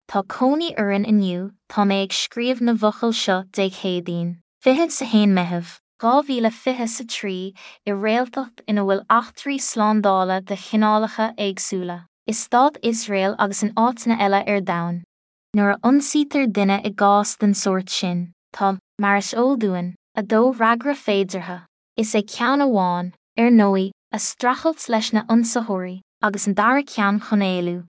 Tá cónaí orainn inniu, tá mé ag scríobh na bhfocal seo Dé Céadaoin, 21 Meitheamh, 2023, i réaltacht ina bhfuil eachtraí slándála de chineálacha éagsúla, i Stát Iosrael agus in áiteanna eile ar domhan. Nuair a ionsaítear duine i gcás den sórt sin, tá, mar is eol dúinn, 2 fhreagra féideartha. Is é ceann amháin, ar ndóigh, a streachailt leis na ionsaitheoirí, agus an dara ceann chun éalú.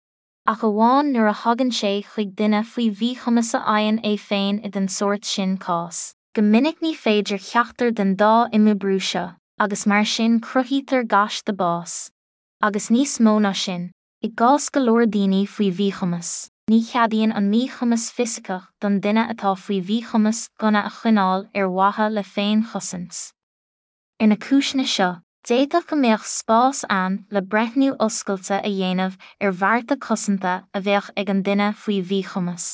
Ach amháin nuair a thagann sé chuig duine faoi mhíchumas a fhaigheann é féin i den sórt sin cás. Go minic ní féidir ceachtar den dá imoibriú seo, agus mar sin cruthaítear gaiste bás. Agus níos mó ná sin, i gcás go leor daoine faoi mhíchumas, ní cheadaíonn an míchumas fisiceach don duine atá faoi mhíchumas gunna a choinneáil ar mhaithe le féinchosaint. Ar na cúiseanna seo, d'fhéadfadh go mbeadh spás ann le breithniú oscailte a dhéanamh ar bhearta cosanta a bheadh ag an duine faoi mhíchumas,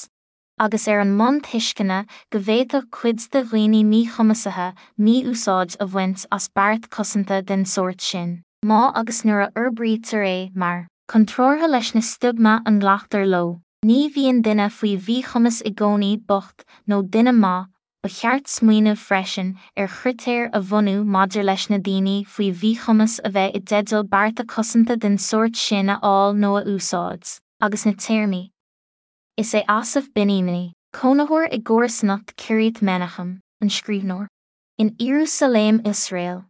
agus ar an mbonn tuisceana go bhféadfadh cuid de dhaoine míchumasaithe mí-úsáid a bhaint as beart cosanta den sórt sin, má agus nuair a fhorbraítear é mar. Contrártha leis na stiogma a nglactar leo, ní bhíonn duine faoi mhíchumas i gcónaí bocht nó duine maith, Ba cheart smaoineamh freisin ar chritéir a bhunú maidir leis na daoine faoi mhíchumas a bheith i dteideal bearta cosanta den sórt sin a fháil nó a úsáid, agus na téarmaí Is é Asaf Binyamini, cónaitheoir i gcomharsanacht Kiryat Menachem, an scríbhneoir. In Iarúsailéim Iosrael.